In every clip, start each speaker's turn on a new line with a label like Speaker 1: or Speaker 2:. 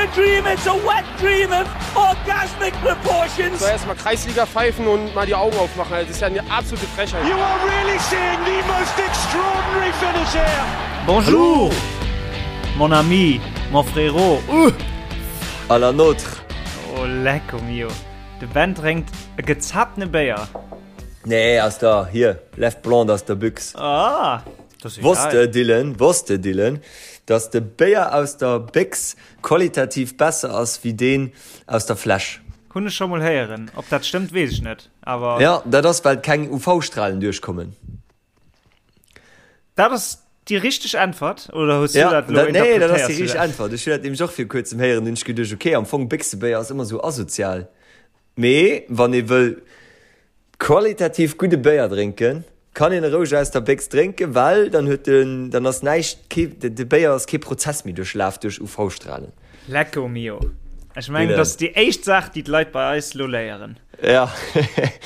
Speaker 1: a dream, it's a wet dream of orgasmic proportions.
Speaker 2: So erstmal Kreisliga pfeifen und mal die Augen aufmachen. Das ist ja eine absolute Frechheit.
Speaker 1: You are really seeing the most extraordinary finish here.
Speaker 3: Bonjour, mon ami, mon frérot. Uh.
Speaker 4: À la nôtre.
Speaker 3: Oh, lecko mio. De Ben drénkt e gezaptene Béier.
Speaker 4: Nee, aus der, hier, Left Blonde aus der Büchs.
Speaker 3: Ah, das ist
Speaker 4: Wosst de, Dylan, wosst de, Dylan, dass de Béier aus der Béchs qualitativ besser ass wéi deen aus der Fläsch?
Speaker 3: Hunn ech scho mol héieren. Ob dat stëmmt, weess ech net, awer.
Speaker 4: Ja, dat ass, well keng UV-Strahlen duerchkommen.
Speaker 3: Dat ass déi richteg Äntwert, oder hues du
Speaker 4: Ja,
Speaker 3: dat elo
Speaker 4: dat, nee, dat ass
Speaker 3: interpretéiers
Speaker 4: déi
Speaker 3: du
Speaker 4: richteg
Speaker 3: dat?
Speaker 4: Äntwert. Ech hunn dat nämlech och vir kuerzem héieren, hunn ech geduecht, okay, am Fong Béchsebéier ass ëmmer esou asozial. Mee wann ee wëll qualitativ gudde Béier drénken, kann een e roueg aus der Béchs drénken, well dann huet den, dann ass näischt, kee, de Béier ass kee Prozess méi duerchlaf duerch UV-Strahlen.
Speaker 3: Lecco mio. Ech mengen, dat ass déi éischt Saach, déi d'Leit bei eis elo léieren.
Speaker 4: Ja.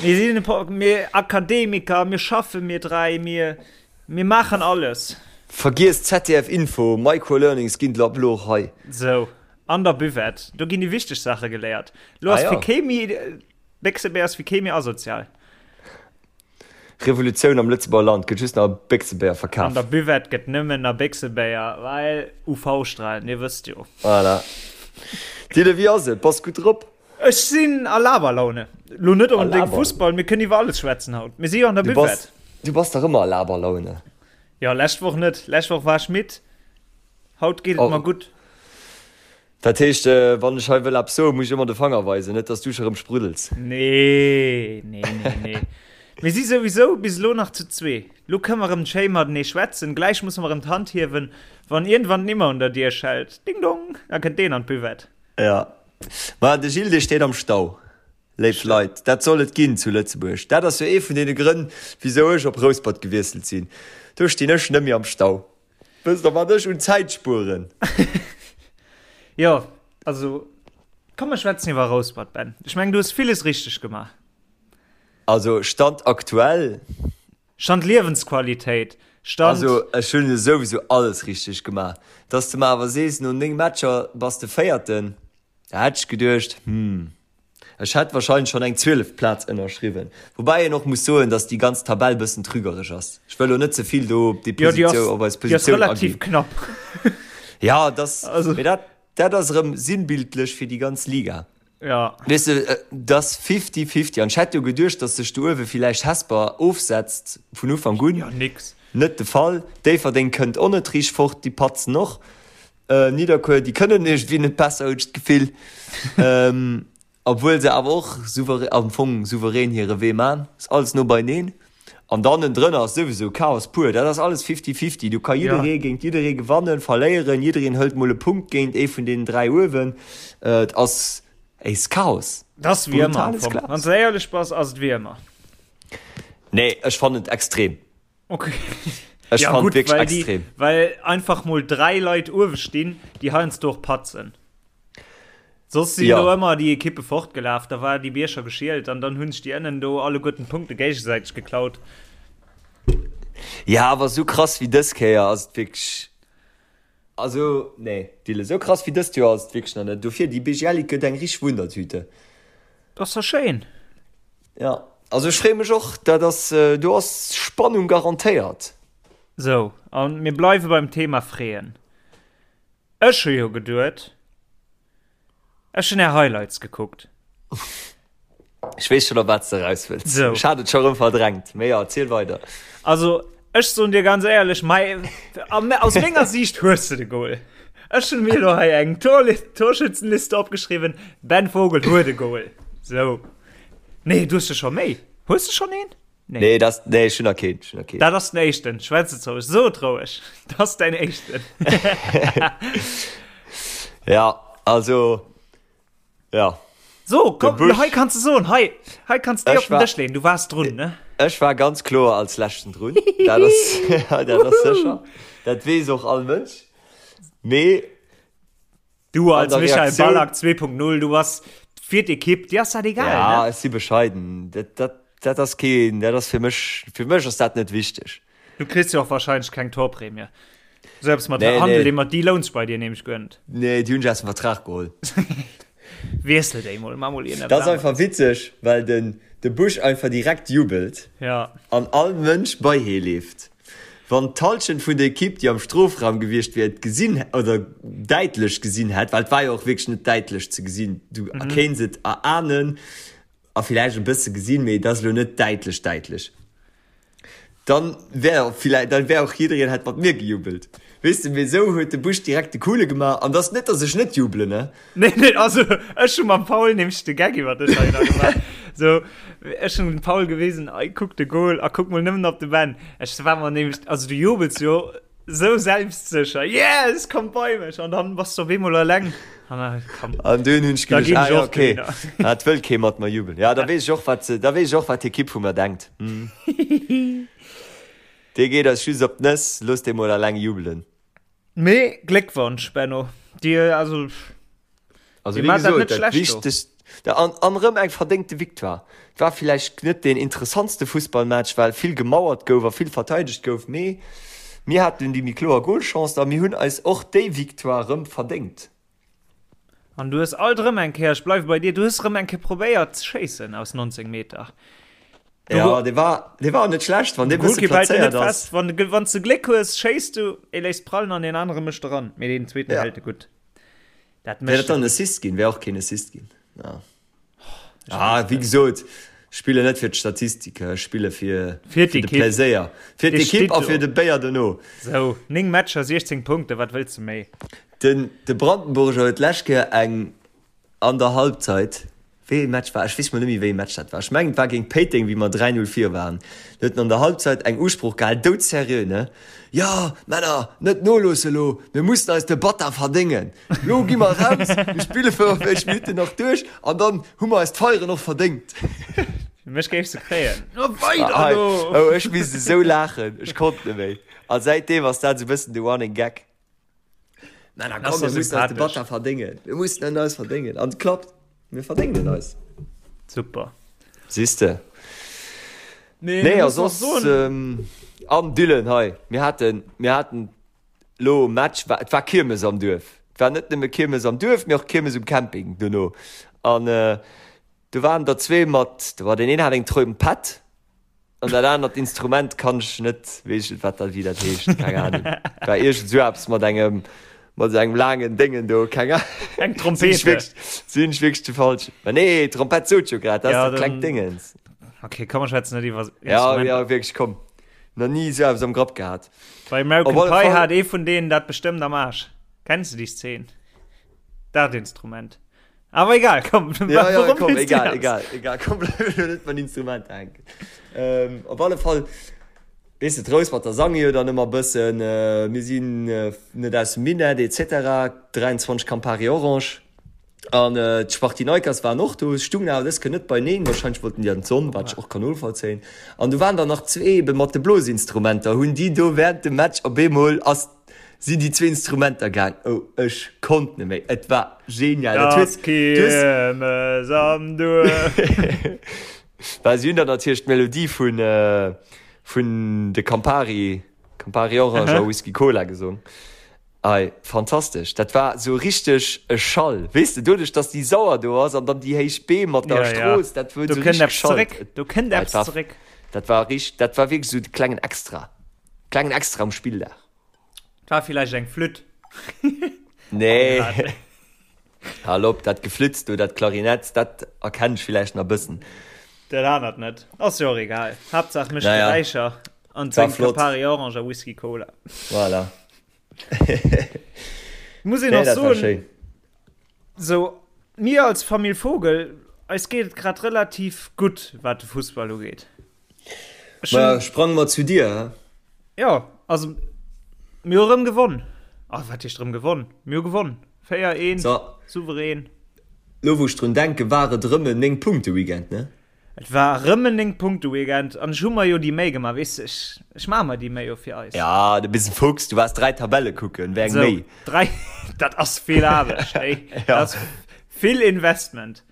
Speaker 3: Mir sinn e puer, mir Akademiker, mir schaffen, mir dräi, mir, mir maachen alles.
Speaker 4: Vergiess ZDF Info, Microlearnings ginn ab elo och hei.
Speaker 3: Sou. An der Buvette, do ginn déi wichteg Saache geléiert. Lo ass
Speaker 4: Ah, ja.
Speaker 3: fir kee méi, Béchsebär ass fir kee méi asozial.
Speaker 4: Revolutioun am Lëtzebuerger Land, gëtt just nach Béchsebéier
Speaker 3: An
Speaker 4: verkaf.
Speaker 3: der Buvette gëtt nëmmen nach Béchsebéier, well UV-Strahlen, dir wësst jo.
Speaker 4: Voilà. Dille, wéi ass et? Bass gutt drop?
Speaker 3: Ech sinn a Laberlaune. Lo net
Speaker 4: A
Speaker 3: onbedéngt
Speaker 4: Laber.
Speaker 3: Fussball, mir kënnen iwwer alles schwätzen haut. Mir si jo an der
Speaker 4: Du bass,
Speaker 3: Buvette.
Speaker 4: du bass dach ëmmer a Laberlaune.
Speaker 3: Jo, lescht Woch net. Lescht Woch war ech midd. Haut geet et
Speaker 4: Oh.
Speaker 3: mer gutt.
Speaker 4: Dat heescht, wann ech hei wëll eppes soen, muss ech ëmmer de Fanger weisen, net dass du scho rëm spruddels.
Speaker 3: Nee, nee, nee, nee. Mir si souwisou bis elo nach zu zwee. Lo kënne mer erëm schéi matenee schwätzen. Gläich musse mer erëm d'Hand hiewen, wann iergendwann d'Nimmer un der Dier schellt. Ding dong! Da kënnt deen an d'Buvette.
Speaker 4: Ja. Ma de Gilles, dee steet am Stau. Léif Leit, dat soll et ginn zu Lëtzebuerg. Dat ass jo ee vun deene Grënn, wisou ech op Rouspert gewiesselt sinn. Do stinn ech net méi am Stau. Wësst der wat ech un Zäit spueren?
Speaker 3: Jo, also komm mer schwätzen iwwer Rouspert, Ben. Ech mengen du hues villes richteg gemaach.
Speaker 4: Also Stand aktuell.
Speaker 3: Stand Liewensqualitéit, Stand.
Speaker 4: Also ech hunn jo souwisou alles richteg gemaach. Dass de mer awer sees no 9 Matcher bass de Véierten, da hätt ech geduecht, hm. Ech hätt wahrscheinlech schon eng 12 Plaz ënnerschriwwen. Woubäi een och muss soen, dass déi ganz Tabell bëssen trügereg ass. Ech wëll lo net ze vill do op déi
Speaker 3: Jo, déi ass,
Speaker 4: Positioun, op eis
Speaker 3: déi ass
Speaker 4: Positioun
Speaker 3: relativ
Speaker 4: aginn.
Speaker 3: knapp.
Speaker 4: Ja, dass,
Speaker 3: Also.
Speaker 4: mee dat, dat ass erëm sinnbildlech fir déi ganz Liga.
Speaker 3: Ja.
Speaker 4: Weess de, et ass fifty-fifty. An ech hätt jo geduecht, dass sech do uewe villäicht Hesper ofsetzt vun Ufank un.
Speaker 3: Jo, nix.
Speaker 4: Net de Fall. Déifferdeng kënnt och net riicht fort, déi patzen och. Nidderkuer, déi kënnen iergendwéi net besser, hunn ech d'Gefill. Obwuel se awer och souverä, am Fong souverän hire Wee man. Ass alles no beineen. An dann ënnendrënner ass souwisou Chaos pur. Dat ass alles fifty-fifty. Do ka jidderee géint jidderee gewannen, verléieren. Jiddereen hëlt mol e Punkt géint ee vun deenen 3 uewen. Et ass, ey, s Chaos.
Speaker 3: Dat ass wéi ëmmer am
Speaker 4: Brutales
Speaker 3: Fong.
Speaker 4: Chaos.
Speaker 3: Wann s de éierlech bass, ass et wéi ëmmer.
Speaker 4: Nee, ech fannen et extrem.
Speaker 3: Okay.
Speaker 4: Ech
Speaker 3: ja,
Speaker 4: fand
Speaker 3: gut,
Speaker 4: wierklech
Speaker 3: weil die,
Speaker 4: extrem.
Speaker 3: Weil einfach mol drei Leit uewe stinn, déi heiansdo och patzen. Soss sinn
Speaker 4: Ja.
Speaker 3: do ëmmer déi Ekippe fortgelaf, da war déi Bierger geschielt an dann hunn sech déi ënnen do alleguerten d'Punkte géigesäiteg geklaut.
Speaker 4: Ja, awer sou krass wéi dës Kéier ass et wierklech. Also, nee, Dille, sou krass wéi dëst Joer ass et wierklech nach net. Dofir, déi BGL Ligue gëtt eng richteg Wundertüte.
Speaker 3: Dat ass da schéin.
Speaker 4: Ja, also ech freeë mech och. Dat ass, do ass Spannung garantéiert.
Speaker 3: Sou, a mir bleiwe beim Thema freeën. Ech hu jo geduet. Ech hun är Highlights gekuckt.
Speaker 4: Ech weess schon op wat s de eraus wëlls.
Speaker 3: Sou.
Speaker 4: Ech hat et scho rëm verdrängt, mee jo, erziel weider.
Speaker 3: Also ech soen dir ganz éierlech, mei, aus menger Siicht hues de de Goal. Ech hunn mir elo hei eng Torschützenliste opgeschriwwen, Ben Vogel huet e Goal. Sou. Nee, du hues jo scho méi. Hues de schonn een?
Speaker 4: Nee. Nee, das, nee, ech hunn nach keen, ech hunn nach keen.
Speaker 3: Dat ass den éischten. Schwätz et roueg. So et roueg. Dat ass däin éischten.
Speaker 4: Ja, also, ja.
Speaker 3: So, komm,
Speaker 4: De Busch.
Speaker 3: hei kanns du soen, hei, hei kanns du déi
Speaker 4: Ech
Speaker 3: op den
Speaker 4: war-
Speaker 3: Dësch leeën. Du waars drun, ne?
Speaker 4: Ech war ganz kloer als Leschten drun. Dat ass, dat ass sécher. Dat weess och all Mënsch. Mee
Speaker 3: Du als
Speaker 4: der
Speaker 3: Michael
Speaker 4: Reaktioun-
Speaker 3: Ballack 2.0, du bass fir d'Ekipp, dir ass dat egal,
Speaker 4: Ja,
Speaker 3: ne?
Speaker 4: ech si bescheiden. Dat, dat, dat ass keen, dat ass fir mech, fir mech ass dat net wichteg.
Speaker 3: Du kriss jo och wahrscheinlech keng Torprämie. Sou eppes mat nee, Handel, nee. mat déi louns bei dir nämlech guer net.
Speaker 4: Nee, déi hunn ech aus dem Vertrag geholl.
Speaker 3: Wiessel déi mol, ma mol
Speaker 4: een. Dat ass einfach witzeg, well den de Bush einfach direkt jubelt.
Speaker 3: Ja.
Speaker 4: An all Mënsch bei hee leeft. Wann d'Halschent vun der Ekipp, déi am Strofraum gewiescht wier, et gesinn oder däitlech gesinn hätt, well et war jo och wierklech net däitlech ze gesinn, du mhm. kéints et erahnen a villäicht e bësse gesinn, mee et ass elo net däitlech däitlech. Dann wär villäicht, dann wär och jiddereen hätt mat mir gejubelt. Weess de, mee esou huet de Bush direkt de Coole gemaach an dass net, dass ech net jubelen, ne?
Speaker 3: Nee, nee, also ech hu mam Paul nämlech de Gag iwwer dech hei nach gemaach. So, ech hunn dem Paul gewisen, ey, kuck de Goal a kuck mol nëmmen op de Ben. Ech war mer nämlech, also du jubels jo sou selbstsécher, yes, komm bei mech an dann bass du op eemol eleng.
Speaker 4: An da, komm. An dunn hunn ech geduecht, ah ja, okay, et wëll kee mat mer jubelen. Ja, da weess ech och, wat se, da weess ech och, wat d'Ekipp vu mer denkt. Dee geet eis just op d'Nëss, looss dee mol eleng jubelen.
Speaker 3: Mee Gléckwonsch Benno, Dir also
Speaker 4: Also wéi gesot, dat wichtegst an an erëm eng verdéngte Victoire. Et war villäicht net deen interessantste Fussballmatch, well vill gemauert gouf a vill verteidegt gouf, mee mir haten déi méi kloer Golchance a mir hunn eis och déi Victoire erëm verdéngt.
Speaker 3: An du hues alt erëm eng Kéier, ech bleiwe bei dir, du hues erëm eng Kéier probéiert ze schéissen aus 19 Meter.
Speaker 4: Du, ja, dee war, dee war net schlecht, wann dee bësse
Speaker 3: plazéiert ass. Wann, wann du Gléck hues, schéiss du, ee léisst prallen an deen anere mécht eran. Mee deen zweeten ja. hält e gutt.
Speaker 4: Dat mécht. Wär dat dann en Assist ginn? Wär och keen Assist ginn. Ja. Ah, wéi gesot, spille net fir d'Statistike, ech spille fir,
Speaker 3: fir de
Speaker 4: Pläséier. Fir d'Ekipp a fir de Béier dono.
Speaker 3: Sou, 9 Matcher, 16 Punkte, wat wëlls de méi?
Speaker 4: Den, de Brandenburger huet d'lescht Kéier eng an der Halbzeit, wéi ee Match war, ech weess mol net méi wéi ee Match dat war, ech mengen et war géint Péiteng, wéi mer 3, 0 vir waren, do huet en an der Halbzeit eng Usprooch gehal, doudserieux, ne, Jo, Männer, net noloosse lo, mir mussen eis de Batter verdéngen. Lo gi mer raus, mir spille 45 Minutten nach duerch an dann hu mer eis d'Feieren och verdéngt.
Speaker 3: Mech géifs de kréien. No weider
Speaker 4: elo! Oh, ech misst esou laachen, ech konnt net méi. A säitdeem ass dat esou e bëssen de Running Gag. Männer, komm, mir mussen eis de Batter verdéngen. Mir mussen en eis verdéngen. An et klappt, mir verdéngen en eis.
Speaker 3: Super.
Speaker 4: Siehst de. Nee, nee a soss, an Dylan hei, mir haten, mir haten Lo Match war, et war Kiermes am Duerf. Et war net nëmme Kiermes am Duerf, mee och Kiermes um Camping dono. An do waren der zwee mat, do war deen een hat eng Trompett an dat anert Instrument kann ech net, weess ech net wat dat, wéi dat heescht, keng Ahnung. War iergend esou eppes mat engem, mat esou engem laangen Déngen do, keng Ahnung.
Speaker 3: Eng Trompete.
Speaker 4: Sinn ech wierklech, sinn ech wierklech de falschen? Ma nee, Trompett sot jo grad, dat ass dat klengt Déngens.
Speaker 3: Okay, komm mer schwätzen net iwwer
Speaker 4: Instrumenter. Ja, ja, wierklech, komm. Nach ni esou eppes am Grapp gehat.
Speaker 3: Bei American Pie hat ee vun deenen dat bestëmmt am Aarsch. Kenns du déi Szene? Dat Instrument. Awer egal, komm.
Speaker 4: Ja, ja, komm, egal, egal, egal. Komm, bleib elo net mat Instrumenter hänken. Ähm, op alle Fall, weess de, d'Rouspert sange jo dann ëmmer bëssen, äh, mir sinn äh, net aus dem Minett, et cetera, 23 Campari Orange. An d'Spartinaikers waren och do, stungen awer dës Kéier net beineen, wahrscheinlech wollten déi an d'Sonn, wat ech och kann novollzéien. An do waren der nach zwee ebe mat de Blosinstrumenter, hunn déi do während dem Match op eemol ass, sinn déi zwee Instrumenter gaang. Oh, ech konnt net méi, et war genial.
Speaker 3: Dat huet, du hues. Kiermes am Duerf.
Speaker 4: Well si hunn dann natierlech d'Melodie vun, vun de Campari, Campari Orange a Whisky Cola gesong. Ei, fantastesch! Dat war sou richteg e Schall, weess de, doduerch dass déi Sauer do ass an dann déi héich Beem mat der
Speaker 3: Ja, ja.
Speaker 4: Strooss, dat huet
Speaker 3: Do
Speaker 4: sou
Speaker 3: kënnt
Speaker 4: richteg
Speaker 3: eppes
Speaker 4: geschallt.
Speaker 3: zeréck. Do kënnt
Speaker 4: Dat
Speaker 3: eppes
Speaker 4: war,
Speaker 3: zeréck.
Speaker 4: dat war richt, dat war wierklech sou de klengen Extra, klengen Extra um Spilldag.
Speaker 3: Et war villäicht eng Flütt.
Speaker 4: Nee, hal op, dat Geflitz do, dat Klarinett, dat erkennt ech villäicht nach e bëssen.
Speaker 3: Dat anert net. Ass jo och egal. Haaptsaach mécht
Speaker 4: Naja,
Speaker 3: Geräischer an
Speaker 4: war
Speaker 3: drénkt
Speaker 4: flott.
Speaker 3: Campari Orange a Whisky Cola.
Speaker 4: Voilà.
Speaker 3: Muss een
Speaker 4: Nee,
Speaker 3: och
Speaker 4: dat war
Speaker 3: soen,
Speaker 4: schéin.
Speaker 3: sou mir als Famill Vogel, eis geet et grad relativ gutt, wat de Fussball ugeet.
Speaker 4: Ech hunn. Ma sprange mer zu dir, hä?
Speaker 3: Jo, also mir hu rëm gewonn. Ah, wat heescht rëm gewonn? Mir hu gewonn. 4, 1,
Speaker 4: So.
Speaker 3: souverän.
Speaker 4: Lo wou ech drun denken, war et erëm en 9 Punkte Weekend, ne?
Speaker 3: Et war erëm en 9 Punkte Weekend an ech hu mer jo déi Méi gemaach, weess de, ech, ech maache mer déi Méi jo fir eis.
Speaker 4: Ja, du bist en Fuchs, du waars 3 Tabelle kucken, wéi eng
Speaker 3: Sou,
Speaker 4: Méi?
Speaker 3: 3, dat ass vill Aarbecht, ey,
Speaker 4: Ja.
Speaker 3: dat ass vill Investment.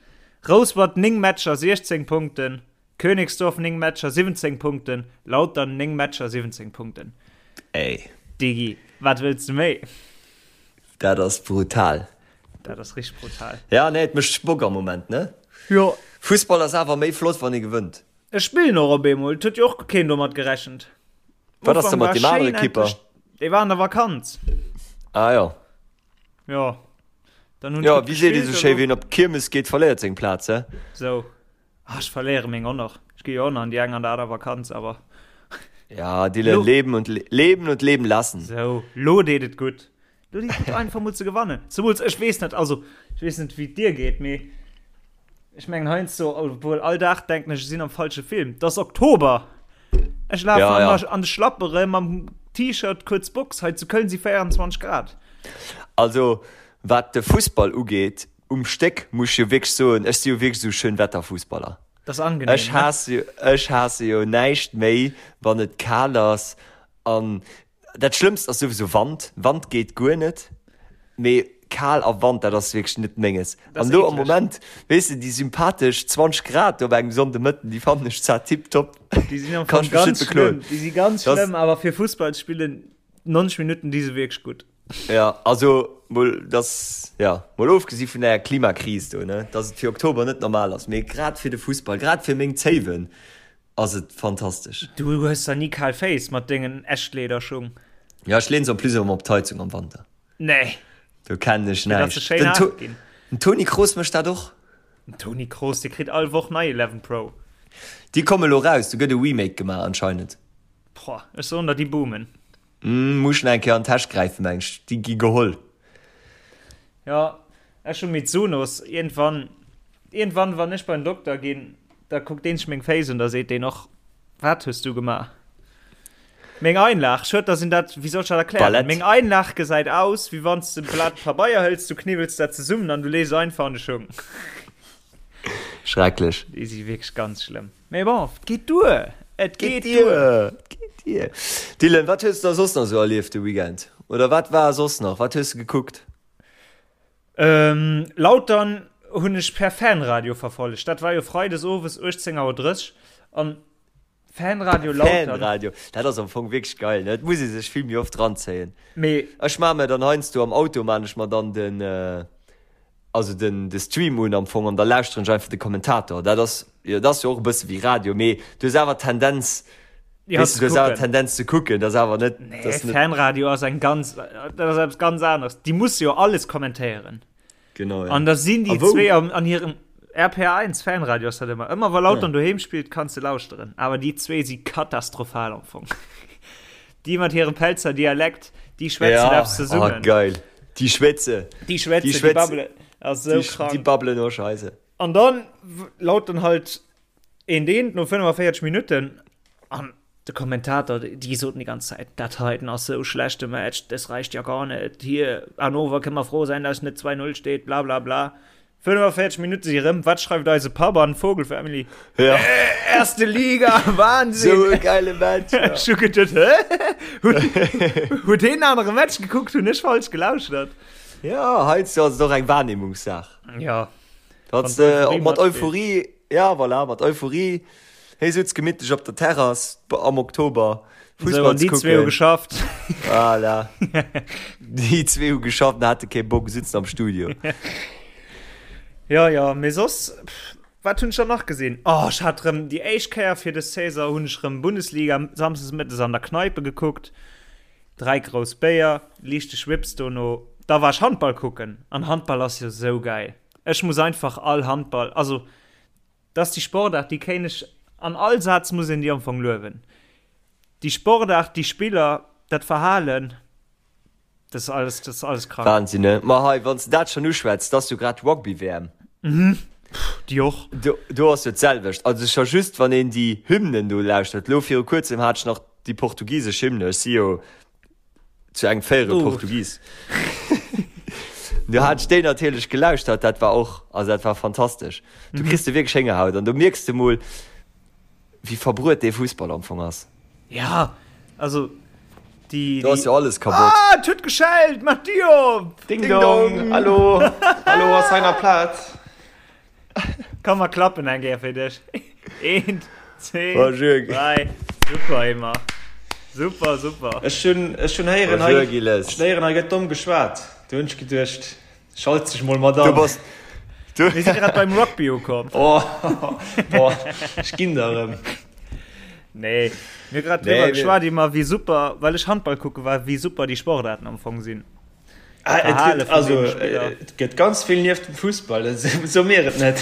Speaker 3: Rouspert 9 Matcher, 16 Punkten, Königsdorf 9 Matcher, 17 Punkten, Lautern 9 Matcher, 17 Punkten.
Speaker 4: Ey.
Speaker 3: Digi, wat wëlls de méi?
Speaker 4: Dat ass brutal.
Speaker 3: Dat ass richteg brutal.
Speaker 4: Ja, nee, et mécht Bock am Moment, ne?
Speaker 3: Jo.
Speaker 4: Fussball ass awer méi flott, wann ee gewënnt.
Speaker 3: Ech spillen och op eemol. Et huet jo och keen domat gerechent.
Speaker 4: Wat ass da mat deem anere Kipper?
Speaker 3: Dee war an der Vakanz.
Speaker 4: Ah jo.
Speaker 3: Jo.
Speaker 4: Dann hunn Jo, wéi seet ee sou schéi, wien op d'Kiermes geet, verléiert seng Plaz, he?
Speaker 3: Sou. Ah, ech verléiere meng och nach. Ech gi jo och nach an déi eng an der aner Vakanz, awer.
Speaker 4: Ja, Dylan, leben und leben und leben lassen.
Speaker 3: Sou, lo deet et gutt. Lo deet et gutt, einfach mol ze gewannen. Zemools, ech weess net, also, ech weess net, wéi et dir geet, mee ech mengen heiansdo, obwuel all Dag denken ech, ech sinn am falsche Film. Et ass Oktober! Ech lafen
Speaker 4: Ja, ja.
Speaker 3: an de Schlappere mam T-Shirt, kuerz Box. Hei zu Köln si 24 Grad.
Speaker 4: Also, wat de Fussball ugeet, um Stéck muss ech jo wierklech soen, ech si jo wierklech esou Schönwetterfussballer.
Speaker 3: Dat ass angenehm,
Speaker 4: Ech
Speaker 3: ne?
Speaker 4: haasse jo, ech haasse jo näischt méi, wann et kal ass an dat Schlëmmst ass souwisou Wand. Wand geet guer net, mee kal a Wand, dat ass wierklech net Menges.
Speaker 3: Dat
Speaker 4: An
Speaker 3: ass
Speaker 4: elo am
Speaker 3: eekleg.
Speaker 4: Moment, weess de, déi sympathesch 20 Grad do op engem Sonndemëtten, déi fannen ech zwar tiptop.
Speaker 3: Déi sinn am
Speaker 4: Kann
Speaker 3: Fong
Speaker 4: ech mech net
Speaker 3: ganz
Speaker 4: bekloen.
Speaker 3: schlëmm. Déi si ganz
Speaker 4: Das-
Speaker 3: schlëmm, awer fir Fussball ze spillen, 90 Minutten, déi si wierklech gutt.
Speaker 4: Ja, also mol dass, ja, mol ofgesi vun der Klimakris do, ne, dass et fir Oktober net normal ass, mee grad fir de Fussball, grad fir meng Zéiwen ass et fantastesch.
Speaker 3: Du hues da ni kal Féiss mat dengen Echtlederschung?
Speaker 4: Ja, ech leen se en plus ëmmer op d'Heizung am Wanter.
Speaker 3: Nee.
Speaker 4: Do kennen ech
Speaker 3: Fir dass se
Speaker 4: näischt.
Speaker 3: schéin
Speaker 4: Den
Speaker 3: haart
Speaker 4: To
Speaker 3: ginn.
Speaker 4: den Toni Kroos mécht dat och.
Speaker 3: Den Toni Kroos, dee kritt all Woch nei 11 Pro.
Speaker 4: Déi komme lo raus, do gëtt e Remake gemaach anscheinend.
Speaker 3: Boah, ech soen der, déi boomen.
Speaker 4: Muss nach eng Kéier an d'Täsch gräifen, meng ech. Déi gi geholl.
Speaker 3: Jo, ech hu Mizunos. Iergendwann, iergendwann, wann ech beim Dokter ginn, da kuckt deen sech meng Féiss un, da seet deen och, Wat hues du gemaach? Meng Einlag, schued, dass een dat, wéi soll ech dat erklären?
Speaker 4: Ballett.
Speaker 3: Meng Einlag gesäit aus, wéi wann s de e Blat Pabeier hëls, du kniwwels dat zesummen an du lees se einfach an de Schung.
Speaker 4: Schrecklech.
Speaker 3: Déi si wierklech ganz schlëmm. Mee bon, et geet duer! Et geet duer!
Speaker 4: Et geet duer! Dylan, wat hues de da soss nach esou erlieft de Weekend? Oder wat war soss nach? Wat hues de gekuckt?
Speaker 3: Lautern hunn ech per Fanradio verfollegt. Dat war jo freides owes 18 Auer 30 an Fanradio Lautern.
Speaker 4: Fanradio, dat ass am Fong wierklech geil, ne? Et muss ee sech vill méi oft ranzéien.
Speaker 3: Mee.
Speaker 4: Ech maache mir dann heiansdo am Auto maan ech mer dann den. Also den de Stream un am Fong an da lauschteren ech einfach de Kommentator. Dat ass jo dat ass jo och e bësse wéi Radio, mee du hues awer d'Tendenz,
Speaker 3: Ja,
Speaker 4: weess
Speaker 3: ze
Speaker 4: du, du hues awer
Speaker 3: kucken.
Speaker 4: d'Tendenz ze kucken, dat ass awer net,
Speaker 3: Nee,
Speaker 4: dat ass net.
Speaker 3: Fanradio ass eng ganz, dat ass eppes ganz aneres. Déi musse jo alles kommentéieren.
Speaker 4: Genau, ja.
Speaker 3: An da sinn déi
Speaker 4: A wou?
Speaker 3: zwee an, an hirem RPR1 Fanradio ass dat ëmmer. Ëmmer wa Lautern doheem spillt, kanns de lauschteren. Awer déi zwee si katastrophal am Fong. Déi mat hirem Pelzer Dialekt, déi schwätzen
Speaker 4: Ja,
Speaker 3: eppes zesummen.
Speaker 4: oh, geil. Déi schwätze.
Speaker 3: Déi schwätzen,
Speaker 4: Déi
Speaker 3: déi
Speaker 4: schwätzen.
Speaker 3: babbelen. Ass sou
Speaker 4: Déi,
Speaker 3: krank.
Speaker 4: déi babbelen och Scheisse.
Speaker 3: An dann Lautern halt een deen no 45 Minutten an de Kommentator, déi soten déi ganz Zäit, dat heiten ass sou schlechte Match, das reicht ja gar net. Hier, Hannover kënne mer frou sein, dass net 2-0 steet, bla bla bla. 45 Minutte si rëm, wat schreift eise Papp an Vogel Family?
Speaker 4: Ja.
Speaker 3: Äh, erste Liga, Wahnsinn!
Speaker 4: So e geile Match. Ja.
Speaker 3: Ech hu geduet, hä? Huet deen anere Match gekuckt, hunn ech falsch gelauschtert?
Speaker 4: Ja, heiansdo ass et och eng Wahrnehmungssaach.
Speaker 3: Ja.
Speaker 4: Wann
Speaker 3: Wann
Speaker 4: de
Speaker 3: d'Euphorie
Speaker 4: mat
Speaker 3: matspillt.
Speaker 4: Euphorie, ja voilà, mat Euphorie, hei sutz gemittlech op der Terrass am Oktober
Speaker 3: So,
Speaker 4: Fussball
Speaker 3: an
Speaker 4: ze
Speaker 3: déi zwee hu
Speaker 4: kucken.
Speaker 3: geschafft.
Speaker 4: Voilà. Déi zwee hu geschafft an hate kee Bock, sitzen am Studio.
Speaker 3: Ja, ja, mee soss, pff, wat hunn ech dann nach gesinn? Oh, ech hat rëm déi éischt Kéier fir des Saison hunn ech rëm Bundesliga samsdes mëttes an der Kneipe gekuckt. Dräi grouss Béier, liichte Schwips dono. Da war ech Handball kucken an Handball ass jo sou gäil. Ech muss einfach all Handball, also Dat ass déi Sportaart, déi kéint ech, an all Saz muss een déi am Fong luewen. Déi Sportaart, déi Spiller, dat Verhalen, dat ass alles, dat ass alles krank.
Speaker 4: Wahnsinn, ne? Ma hei, wann s de dat schonn uschwätz, 't ass jo grad Rugby-WM.
Speaker 3: Mhm, déi och.
Speaker 4: Do, do ass jo d'selwecht. Also scho just, wann een déi Hymnen do lauschtert. Elo viru kuerzem hat ech nach déi portugisesch Hymne. Ech si jo zu engem Véierel
Speaker 3: Oh.
Speaker 4: Portugis. Du hat ech déi natierlech gelauschtert, dat war och, also dat war fantastesch. Du mhm. kriss de wierklech Héngerhaut an du mierks de mol, wéi verbruet dee Fussball am Fong ass.
Speaker 3: Ja, also
Speaker 4: déi. Do ass jo alles kaputt.
Speaker 3: Ah, et huet geschellt, mach Dier op!
Speaker 2: Ding dong, hallo, hallo ass hei nach Plaz?
Speaker 3: Komm mer klappen eng Kéier fir dech. Eent, zwee, dräi. Super, Emma. Super, super.
Speaker 5: Ech hunn, ech hunn héieren, hei,
Speaker 4: Bonjour, Gilles.
Speaker 5: ech hunn héieren, hei gëtt domm geschwat. Do hunn ech geduecht, schalt sech mol mat
Speaker 4: Du
Speaker 5: an.
Speaker 4: bass, du.
Speaker 3: Mir si grad beim Rugby ukomm.
Speaker 5: Oh, boah, ech ginn der erëm.
Speaker 3: Nee, mir hu grad
Speaker 4: Nee,
Speaker 3: driwwer
Speaker 4: mir-
Speaker 3: geschwat iwwer wéi super, well ech Handball kucke war, wéi super déi Sportaarten am Fong sinn.
Speaker 5: Ah, et
Speaker 3: Verhale
Speaker 5: gëtt,
Speaker 3: vun
Speaker 5: also,
Speaker 3: deene Spiller.
Speaker 5: et gëtt ganz vill nieft dem Fussball, dat so mir et net.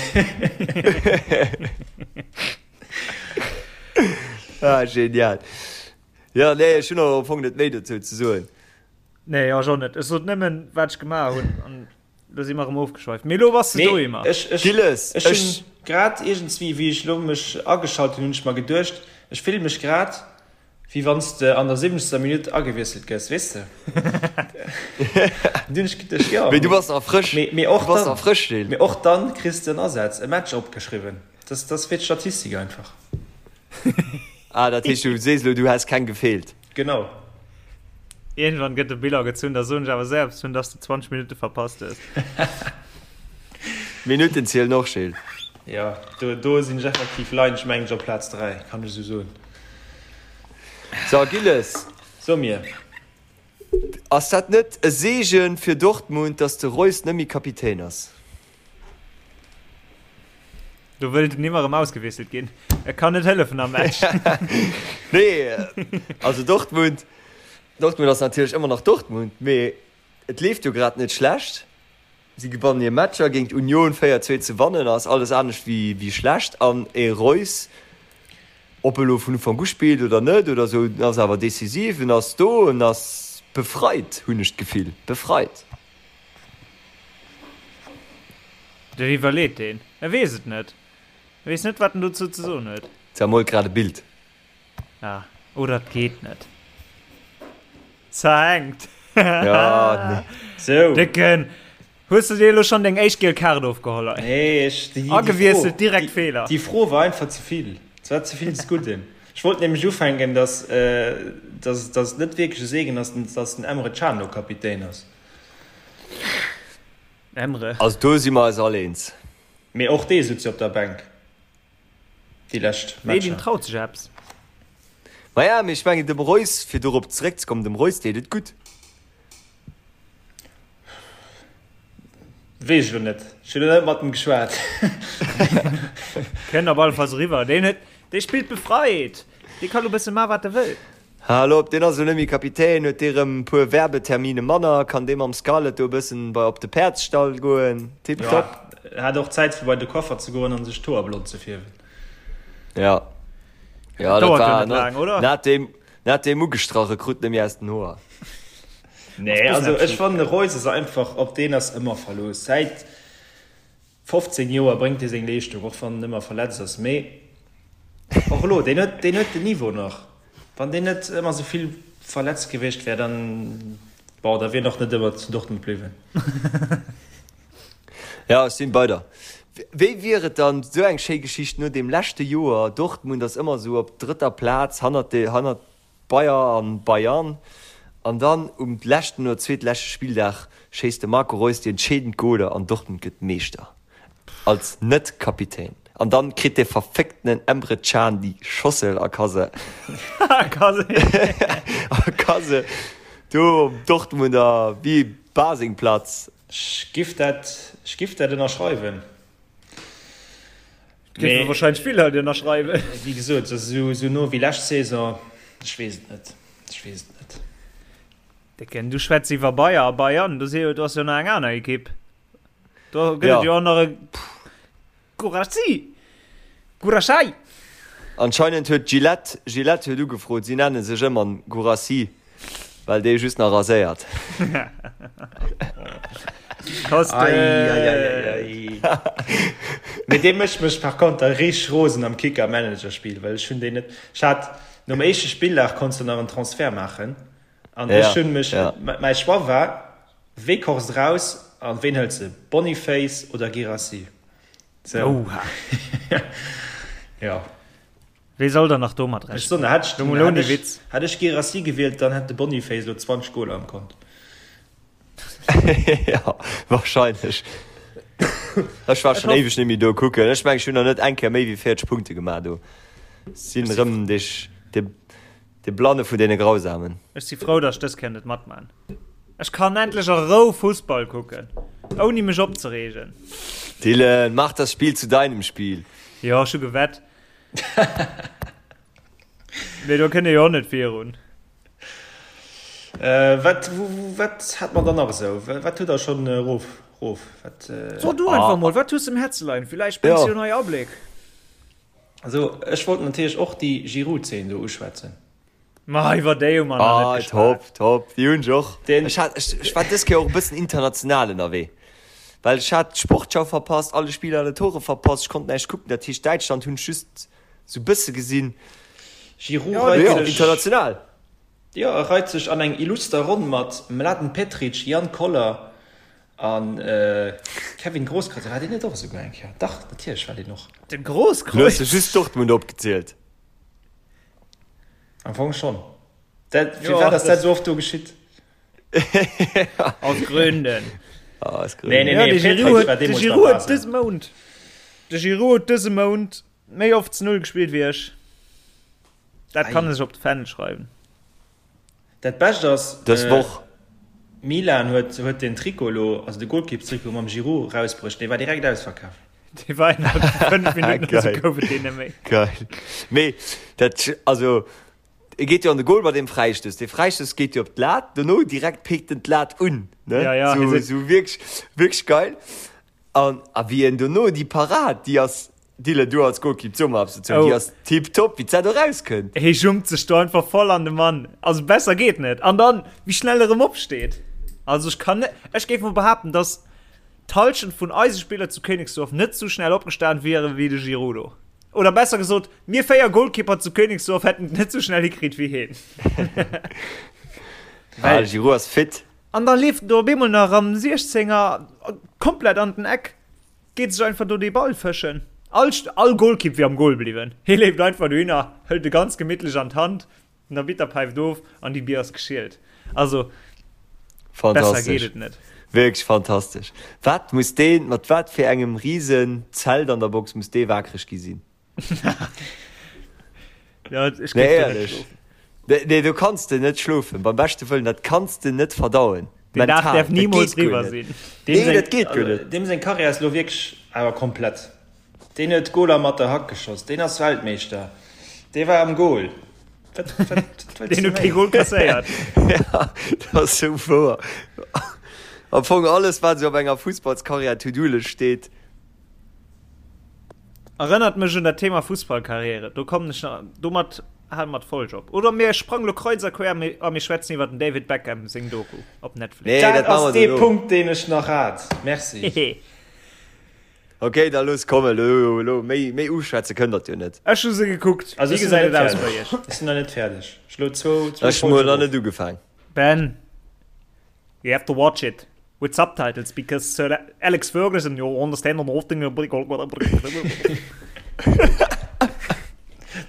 Speaker 4: Ah, genial. Ja, nee, ech hunn och am Fong net méi dozou ze soen.
Speaker 3: Nee, ech och net. Ech sot nëmmen, wat ech gemaach hunn, an lo si mer erëm ofgeschweift. Mee lo bass de do,
Speaker 5: Mee
Speaker 3: Emma.
Speaker 5: ech, ech,
Speaker 4: Gilles,
Speaker 5: ech hunn
Speaker 4: ech.
Speaker 5: grad iergendswéi, wéi ech lo mech ageschalt hunn, hunn ech mer geduecht, ech fille mech grad, wéi wann s de an der siwwenzegster Minutt agewiesselt gëss, weess de? Dunn hunn ech geduecht, jo,
Speaker 4: Mee du bass nach frësch.
Speaker 5: mee, mee och
Speaker 4: Du bass
Speaker 5: dann,
Speaker 4: nach frësch, Gilles.
Speaker 5: mee och dann kriss de en Asaz, e Match opgeschriwwen. Dat ass fir d'Statistik einfach.
Speaker 4: Ah, dat heescht, du sees elo, du häss keng gefeelt.
Speaker 5: Genau.
Speaker 3: Iergendwann gëtt de Bilan gezunn, da soen ech awer selbst hunn, dass de 20 Minutte verpasst hues.
Speaker 4: Minutten zielen och, Gilles.
Speaker 5: Jo, do, do sinn ech effektiv, leien ech mengen ech op Plaz 3, kann ech esou soen.
Speaker 4: So, Gilles.
Speaker 5: So mir.
Speaker 4: Ass dat net e Seegen fir Dortmund, dass de Reus net méi Kapitän ass?
Speaker 3: Do wëllt en nimmer erëm ausgewiesselt ginn. E kann net hëllefen am Match.
Speaker 4: Nee, also Dortmund, Dortmund ass natierlech ëmmer nach Dortmund, mee et leeft jo grad net schlecht. Si gewannen hir Matcher, géint Union 4, 2 ze wannen ass alles anescht wéi schlecht. An e Reus, ob e lo vun Ufank u spillt oder net oder esou, en ass awer decisiv, en ass do, en ass befreit, hunn ech d'Gefill, befreit.
Speaker 3: Dat iwwerleet deen. E weess et net. E weess net, wat en dozou ze soen huet.
Speaker 4: Zermoolt grad e Bild.
Speaker 3: Ah, oder et geet net. Zerhängt.
Speaker 4: Ja, nee.
Speaker 5: Sou.
Speaker 3: Décken, hues du dir elo schonn deng éischt giel Kaart ofgeholl? Ei.
Speaker 5: Nee, ech, déi, déi
Speaker 3: Agewiesselt,
Speaker 5: Fro,
Speaker 3: direkt
Speaker 5: déi,
Speaker 3: Feeler.
Speaker 5: déi Fro war einfach ze vill. Et war ze vill des Gudden. Ech wollt nämlech ufänken, dass, dass, dass et net wierklech e Segen ass, dass den Emre Can elo Kapitän ass.
Speaker 3: Emre.
Speaker 4: Also do si mer eis all eens.
Speaker 5: Mee och dee sutz jo op der Bänk déi lescht
Speaker 3: Nee, deen
Speaker 5: Matcher.
Speaker 3: traut sech eppes.
Speaker 4: Maja, mee ech mengen dem Reus, fir dorop zeréckzekommen, dem Reus deet et gutt.
Speaker 5: Weess ech elo net. Ech hunn elo net mat em geschwat.
Speaker 3: Kënnt op alle Falls eriwwer. Deen huet, dee spillt befreit. Dee ka lo bësse man, wat e wëll.
Speaker 4: Hal op, deen ass elo net méi Kapitän, huet dee rëm e puer Werbetermine manner, kann dee mam Scarlett do e bëssen bei op de Päerdsstall goen. Tiptop.
Speaker 5: Jo, hat och Zäit fir bei de Coiffer ze goen an sech d'Hoer blond ze fierwen.
Speaker 4: Ja. Ja, dat
Speaker 3: Dauert jo
Speaker 4: war
Speaker 3: net laang, oder?
Speaker 4: Na deem, na deem ugestrach, e krut net méi aus den Hoer.
Speaker 5: Nee, also ech fannen de Reus ass einfach, op deen ass ëmmer Verlooss. Säit 15 Joer bréngt dee seng Leeschtung, och wann en ëmmer verletzt ass. Mee och elo, deen huet, deen huet den Niveau nach. Wann deen net ëmmer esou vill verletzt gewiescht wär, dann, bon, da wier en och net ëmmer zu Dortmund bliwwen.
Speaker 4: Ja, ech sinn bei der. Wéi wier et dann, esou eng schéi Geschicht no deem leschte Joer, Dortmund ass ëmmer esou op drëtter Plaz hannert de, hannert Bayer an Bayern, an dann um leschten oder zweetleschte Spilldag schéisst de Marco Reus déi entscheedend Goler an Dortmund gëtt Meeschter. Als Net-Kapitän. An dann kritt dee verfécktenen Emre Can déi Schossel a ka se a ka se do um Dortmunder wéi Basingplatz.
Speaker 5: Ech giff dat, ech giff dat ënnerschreiwen.
Speaker 3: Géife wahrscheinlech vill Leit ënnerschreiwen.
Speaker 5: Wéi gesot, esou esou no wéi lescht Saison, ech weess et net, ech weess et net.
Speaker 3: Décken, du schwätz iwwer Bayer a Bayern, do si jo, do ass jo nach eng aner Ekipp. Do gëtt et jo och nach e Guirassy, Guirassy.
Speaker 4: Anscheinend huet Gillette, Gillette huet ugefrot, si nenne sech ëmmer Guirassy. Well dee just nach raséiert.
Speaker 5: Mee dee mécht mech par konter richteg rosen am Kicker Manager Spill, well ech hunn deen net. Ech hat nom éischte Spilldag konns de nach en Transfert maachen an ech hunn mech, mäi Choix war Weghorst raus an ween hëls de, Boniface oder Guirassy? Sou. Jo.
Speaker 3: Wee soll dann nach domat
Speaker 5: rechnen? Ech soen, hätt ech, den, hätt ech, hätt ech Guirassy gewielt, dann hätt de Boniface elo 20 Goler am Kont.
Speaker 4: Ja, wahrscheinlech. Ech war schon éiweg net méi do kucken. Ech mengen, ech hunn nach net eng Kéier méi wéi 40 Punkte gemaach do. Sinn erëm dech, de. De Blanne vun deene Grausamen.
Speaker 3: Ech si frou, datt ech dës Kéier net matman. Ech kann endlech a Rou Fussball kucken, ouni mech opzereegen.
Speaker 4: Dylan, mach das Spiel zu deinem Spiel!
Speaker 3: Jo, ech hu gewett. Mee do kënnt ee jo och net virun.
Speaker 5: Wat, wat hat mer dann nach esou? Wat hutt der schonn erof, rof? Wat?
Speaker 3: So du einfach mol, wat hues de um Häerze leien? Villäicht bréngs du jo nei Abléck.
Speaker 5: Also ech wollt natierlech och déi Giroud-Zeen do uschwätzen.
Speaker 3: Ma iwwer déi hu mer nach net
Speaker 4: geschwat. Ah, top, top, déi hunn ech och. Ech hat, ech, ech war dës Kéier och e bëssen international ënnerwee, well ech hat d'Sportschau verpasst, alle Spiller, alle Tore verpasst, ech konnt näischt kucken, dat heescht Däitschland hunn ech just sou bësse gesinn.
Speaker 5: Giroud reit
Speaker 4: sech. International.
Speaker 5: Jo, e reit sech an eng illuster Ronn mat Mladen Petric, Jan Koller a Kevin Grosskreutz. War deen net och esouguer eng Kéier? Dach, natierlech war deen och.
Speaker 3: De Grosskreutz?
Speaker 4: Du hues jo just Dortmund opgezielt.
Speaker 5: Am Fong schonn. Dat, firwat ass dat esou oft do geschitt?
Speaker 3: Aus Gründen.
Speaker 4: Aus Gründen.
Speaker 5: Nee, nee, nee,
Speaker 3: de Giroud huet, de Giroud huet dëse Mount, de Giroud huet dëse Mount méi oft zu Null gespillt wéi ech. Dat kann ech op de Fändel schreiwen.
Speaker 5: Dat Bescht ass,
Speaker 4: Dës Woch.
Speaker 5: Milan huet huet den Trikot elo, also de Golkippstrikot mam Giroud erausbruecht, dee war direkt ausverkaf.
Speaker 3: Dee war innerhalb vu 5 Minutten oder sou gouf et deen net méi.
Speaker 4: Geil. Mee dat, also e geet jo an de Goal bei deem Fräistouss. Dee Fräistouss geet jo op d'Lat, dono direkt pikt en d'Lat un, ne?
Speaker 3: Ja, ja,
Speaker 4: Sou, sou wierklech, wierklech geil. An a wéi en dono déi Parad, déi ass, Dylan, du als Golkipp, so mol eppes dozou, déi
Speaker 3: Oh.
Speaker 4: ass tiptop, wéi d'Sat do rauskënnt.
Speaker 3: Hee jumpt sech do einfach voll an de Mann. Also besser geet net. An dann, wéi schnell e rëm opsteet. Also ech kann net, ech géif mol behaapten, dass d'Halschent vun eise Spiller zu Königsdorf net sou schnell opgestan wieren, wéi de Giroud do. Oder besser gesot, mir 4 Golkipper zu Königsdorf hätten et net sou schnell hikritt wéi heen.
Speaker 4: Ah, de Giroud ass fit.
Speaker 3: An da leeft en do op eemol nach am Siechzenger komplett an den Eck, geet sech einfach do dee Ball fëschen. All, all Golkipp wier am Gol bliwwen. Hie leeft einfach dohinner, hëlt e ganz gemittlech an d'Hand, den Arbitter päift of an déi Bier ass geschielt. Also, besser geet
Speaker 4: Fantastesch.
Speaker 3: et net.
Speaker 4: Wierklech fantastesch. Wat muss deen, mat wat fir engem risen Zelt an der Box muss dee waakreg gi sinn?
Speaker 3: Ja, ech
Speaker 4: Nee,
Speaker 3: géif do net
Speaker 4: éierlech.
Speaker 3: schlofen.
Speaker 4: Nee, nee, do kanns de net schlofen. Beim beschte Wëllen, dat kanns de net verdauen.
Speaker 3: Deen Dag
Speaker 4: Mental.
Speaker 3: däerf
Speaker 4: Dat
Speaker 3: nimools
Speaker 4: geet guer
Speaker 3: riwwer
Speaker 4: net.
Speaker 3: sinn.
Speaker 5: Deem
Speaker 4: Nee,
Speaker 5: seng,
Speaker 4: dat geet guer
Speaker 5: also,
Speaker 4: net.
Speaker 5: deem seng Karriär ass elo wierklech awer komplett. Deen huet Goler mat der Hack geschoss, deen ass Weltmeeschter, dee war am Goal. Wat, wat, wat wëlls
Speaker 3: Deen
Speaker 5: de
Speaker 3: huet kee
Speaker 5: méi?
Speaker 3: Goal kasséiert.
Speaker 4: Ja, dat ass sou wouer. Am Fong alles, wat esou op enger Fussballskarriär To-Do-Lëscht steet.
Speaker 3: Erënnert mech un dat Thema Fussballkarriere. Do kommen ech nach, domat hale mer d'Folg op. Oder mir sprangen lo kreuz a quer a mir schwätzen iwwer den David Beckham seng Doku op Netflix.
Speaker 4: Nee,
Speaker 5: Dat
Speaker 4: dat maache
Speaker 5: ass
Speaker 4: mer
Speaker 5: dee
Speaker 4: dono.
Speaker 5: Punkt, deen ech nach hat. Merci.
Speaker 3: Hehe.
Speaker 4: Ok, da looss kommen. Elo, elo, méi, méi uschwätze kënnt der jo net.
Speaker 3: Ech hu se gekuckt.
Speaker 5: Also
Speaker 3: Wéi
Speaker 5: ech sinn nach
Speaker 3: gesäit
Speaker 5: net
Speaker 3: et aus bei
Speaker 5: fäerdeg.
Speaker 3: iech?
Speaker 5: Ech sinn nach net fäerdeg. Ech elo zwou, zwou
Speaker 4: Ech hu mol
Speaker 5: Folgen
Speaker 4: nach
Speaker 5: erof.
Speaker 4: net ugefaang.
Speaker 3: Ben, you have to watch it. With subtitles because Sir Alex Ferguson you understand on often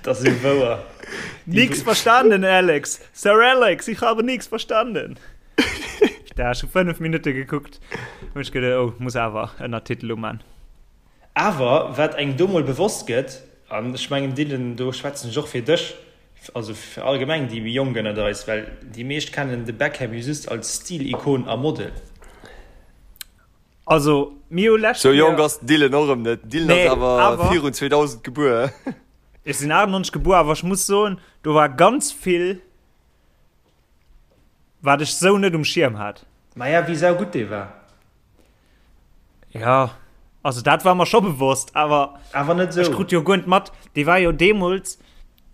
Speaker 5: Das ist wouer.
Speaker 3: Nix verstanden Alex Sir Alex ich habe nix verstanden Da schon 5 Minuten geguckt und ich gedacht, oh muss awer Ënnertitel uman.
Speaker 5: Awer wat engem do mol bewosst gëtt, an ech mengen Dylan do schwätzen ech och fir dech, also fir allgemeng déi méi Jonk ënnert eis, well déi meescht kennen de Beckham jo just als Stil-Ikon a Model.
Speaker 3: Also mir hu lescht
Speaker 4: Sou jonk
Speaker 3: Kéier.
Speaker 4: ass den Dylan och erëm net. Den Dylan
Speaker 3: Nee,
Speaker 4: ass awer
Speaker 3: awer.
Speaker 4: virun 2000 gebuer.
Speaker 3: Ech sinn 98 gebuer, awer ech muss soen, do war ganz vill, wat ech sou net um Schierm hat.
Speaker 5: Maja, wéi saugutt dee war.
Speaker 3: Ja, also dat war mer scho bewosst, awer
Speaker 5: awer net
Speaker 3: ech
Speaker 5: sou.
Speaker 3: krut jo guer net mat, dee war jo deemools,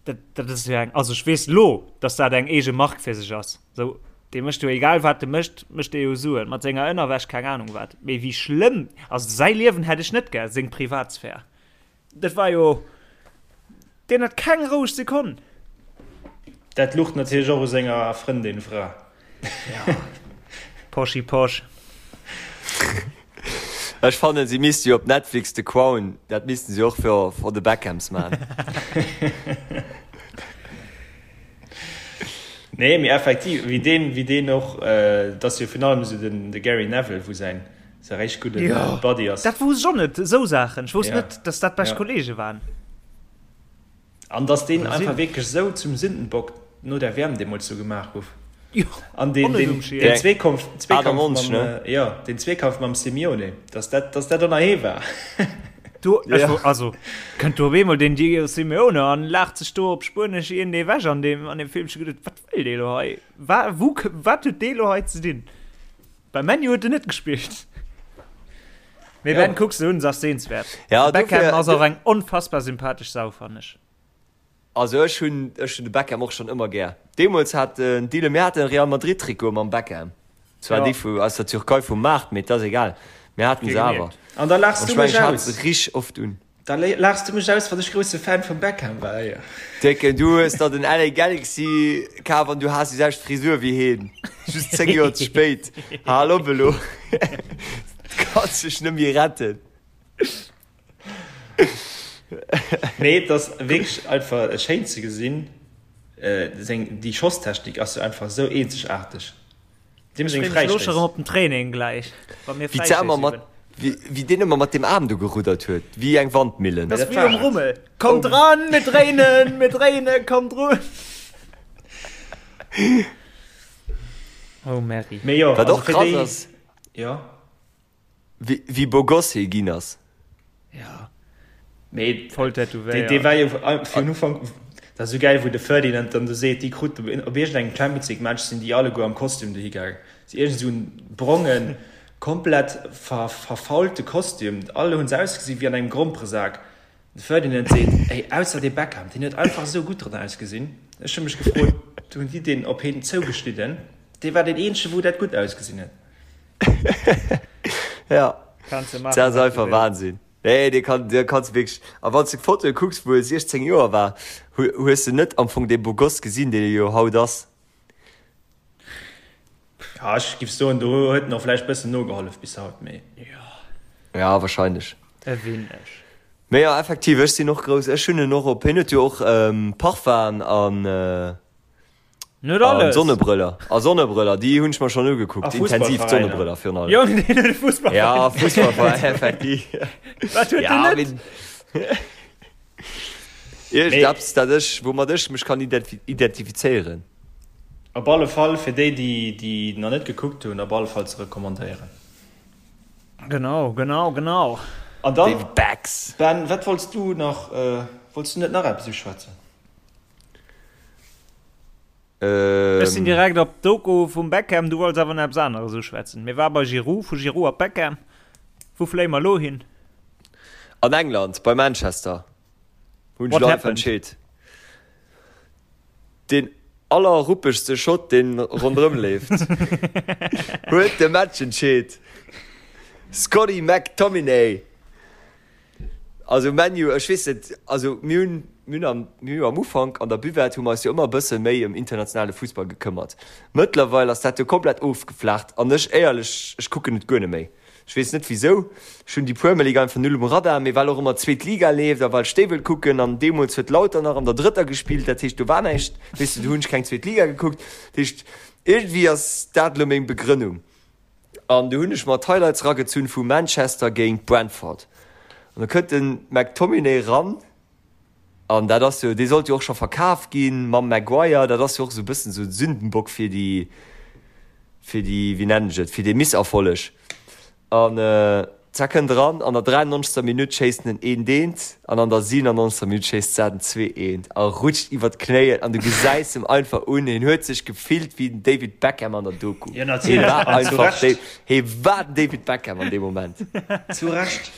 Speaker 3: dat, dat ass jo eng, also ech weess lo, dass dat eng eege Mark fir sech ass, sou, dee mécht jo egal wat e mécht, mécht dee jo Suen mat senger Ënnerwäsch, keng Ahnung wat, mee wéi schlëmm, also säi Liewen hätt ech net gär, seng Privatsphär. Dat war jo, deen hat keng roueg Sekonn.
Speaker 5: Dat luch natierlech och u senger Frëndin, Fra.
Speaker 3: Ja, Poschi Posch.
Speaker 4: Ech fannen si misste jo op Netflix The Crown, dat missten si och fir for the Beckhams man.
Speaker 5: Nee, mee effektiv, wéi deen, wéi deen och, et ass jo virun allem esou den de Gary Neville, wou säin säi réischt gudde
Speaker 3: Jo,
Speaker 5: Buddy ass.
Speaker 3: dat wousst ech och net, esou Saachen. Ech wousst
Speaker 5: Ja,
Speaker 3: net, dass dat bescht
Speaker 5: ja.
Speaker 3: Kollege waren.
Speaker 5: An dass deen
Speaker 3: Oder
Speaker 5: einfach
Speaker 3: sinn.
Speaker 5: wierklech esou zum Sündenbock. no der WM deemools do gemaach gouf. Jo, An deen, deen, deen Zweekampf, Zweekampf mam, jo, deen Zweekampf mam Simeone, dass dat, dass dat ënner hee war.
Speaker 3: Do, ech ja. also, kënnt do op eemol den Diego Simeone an laacht sech do op Spuenesch een ewech an deem, an deem Film. Ech hu geduet, wat wëll dee lo hei? Wa, wou, wat huet dee lo hei ze dinn? Bei Man U huet en net gespillt. Mee ja. Ben, kuck se un, se ass sehenswert. Ja, de Beckham ass och eng onfassbar sympathesch Sau, fannen ech.
Speaker 4: Also ech hunn ech hunn de Beckham och schonn ëmmer gär. Deemools hat den Dylan, mir haten e Real Madrid Trikot mam Beckham. Zwar ja. déi vu aus der Türkei vum Maart, mee et ass egal. Mir haten se awer.
Speaker 5: An da laachs du mech
Speaker 4: aus. Ech rich oft un.
Speaker 5: Da laachs du mech aus, wann ech grousse Fan vum Beckham war, jo.
Speaker 4: Décken, du hues der den LA Galaxy kaf an du has déi selwecht Frisur wéi heen. Just 10 Joer ze spéit. Hal op elo. Du kanns dech net méi retten.
Speaker 5: Mee et ass wierklech einfach schéin ze gesinn, seng, déi Schosstechnik ass jo einfach esou eenzegaarteg.
Speaker 3: Deem seng Fräistéiss. Ech op den Training gläich,
Speaker 4: wa mir Fräistéiss üben. Wéi deen ëmmer mat deem Aarm do geruddert huet, wéi eng Wandmillen.
Speaker 3: Dat ass wéi um Rummel. Kommt dran, mir dréinen, mir dréinen, kommt drun. Oh Merri.
Speaker 5: Mee jo,
Speaker 4: Wat och krass ass.
Speaker 5: Jo.
Speaker 4: Wéi beau gosse hie ginn ass.
Speaker 3: Ja.
Speaker 5: Mee
Speaker 3: voll tätowéiert.
Speaker 5: Dee war jo vun Ufank, dat ass esou gäil, wou de Ferdinand dann do seet, déi krut op iergendengem Champions League Match sinn déi alleguer am Kostüm dohi gaangen. Sou iergend esou en brongen, komplett verfaulte Kostüm. Alle hunn se ausgesi wéi an engem Gromperesak. De Ferdinand seet, Ey, ausser dee Beckham, deen huet einfach esou gutt dran ausgesinn. Ech hu mech gefrot, hunn déi deen op hien zougeschnidden? Dee war deen eenzege wou dat gutt ausgesinn huet.
Speaker 4: Ja,
Speaker 3: Kannst du machen,
Speaker 4: dat ass
Speaker 3: was du
Speaker 4: einfach
Speaker 3: willst.
Speaker 4: Wahnsinn. Nee, dee kann, dee kanns du wierklech. A wann s de Fotoe kucks, wou e 16 Joer war, hu, hues de net am Fong dee Beau Gosse gesinn, deen e jo haut ass.
Speaker 5: Ja, ech giff soen, do huet en och vläicht bëssen nogehollef bis haut, mee.
Speaker 4: Ja, wahrscheinlech.
Speaker 3: E wéineg.
Speaker 4: Mee jo, effektiv, ech sinn och grouss, ech hunn en och op, hien huet jo och Parfum an.
Speaker 3: Net alles.
Speaker 4: Sonnebrëller. A Sonnebrëller, déi hunn ech mer schonn ugekuckt. Intensiv d'Sonnebrëller virun allem.
Speaker 3: Jong, deen huet e Fussballveräin.
Speaker 4: Ja, Fussballveräin, effektiv.
Speaker 3: Wat huet
Speaker 4: ja,
Speaker 3: den net?
Speaker 4: Iergendeppes, dat ech, woumat ech mech kann identifizéieren.
Speaker 5: Op alle Fall fir déi, déi déi nach net gekuckt hunn, op alle Fall ze recommandéieren.
Speaker 3: Genau, genau, genau.
Speaker 5: An dann,
Speaker 4: David Becks.
Speaker 5: Ben, wat wollts du nach, wollts du net nach eppes uschwätzen?
Speaker 3: Ech sinn direkt op d'Doku vum Beckham, du wollts awer nach eppes aneres uschwätzen. Mir war bei Giroud, vu Giroud op Beckham. Wou fléie mer elo hin?
Speaker 4: An England, bei Manchester, hunn ech
Speaker 3: What
Speaker 4: elo einfach
Speaker 3: happened?
Speaker 4: entscheet. Deen allerruppegste Schott, deen ronderëm leeft, huet de Match entscheet. Scotty McTominay. Also ManU, ech weess net, also mir hunn, mir hunn am, mir hu am Ufank an der Buvette hu mer eis jo ëmmer e bësse méi ëm internationale Fussball gekëmmert. Mëttlerweil ass dat jo komplett ofgeflaacht an ech éierlech, ech kucken et guer net méi. Ech weess net wisou, ech hunn déi Premier League einfach null um Radar, mee well och ëmmer d'zweet Liga leeft a well ech déi wëll kucken an deemools huet Lauter nach an der drëtter gespillt, dat heescht do war näischt, weess de, do hunn ech keng zweet Liga gekuckt. Dat heescht iergendwéi ass dat elo meng Begrënnung. An du hunn ech mer d'Highlights ragezunn vu Manchester géint Brentford. An da kënnt de McTominay ran, an dat ass jo, dee sollt jo och scho verkaf ginn mam Maguire, dat ass jo och esou e bëssen esou en Sündenbock fir déi, fir déi, wéi nennen ech et, fir dee Misserfolleg. An zack kënnt eran, an der 93. Minutt schéisst en en eent eent an an der 97. Minutt schéisst Zar den 2 eent a rutscht iwwer d'Knéien an du gesäis em einfach un, hien huet sech gefillt wéi den David Beckham an der Doku.
Speaker 5: Jo
Speaker 4: Hie
Speaker 5: natierlech,
Speaker 4: war
Speaker 5: an zu
Speaker 4: einfach
Speaker 5: Recht.
Speaker 4: hie war den David Beckham an deem Moment.
Speaker 5: Zu Recht.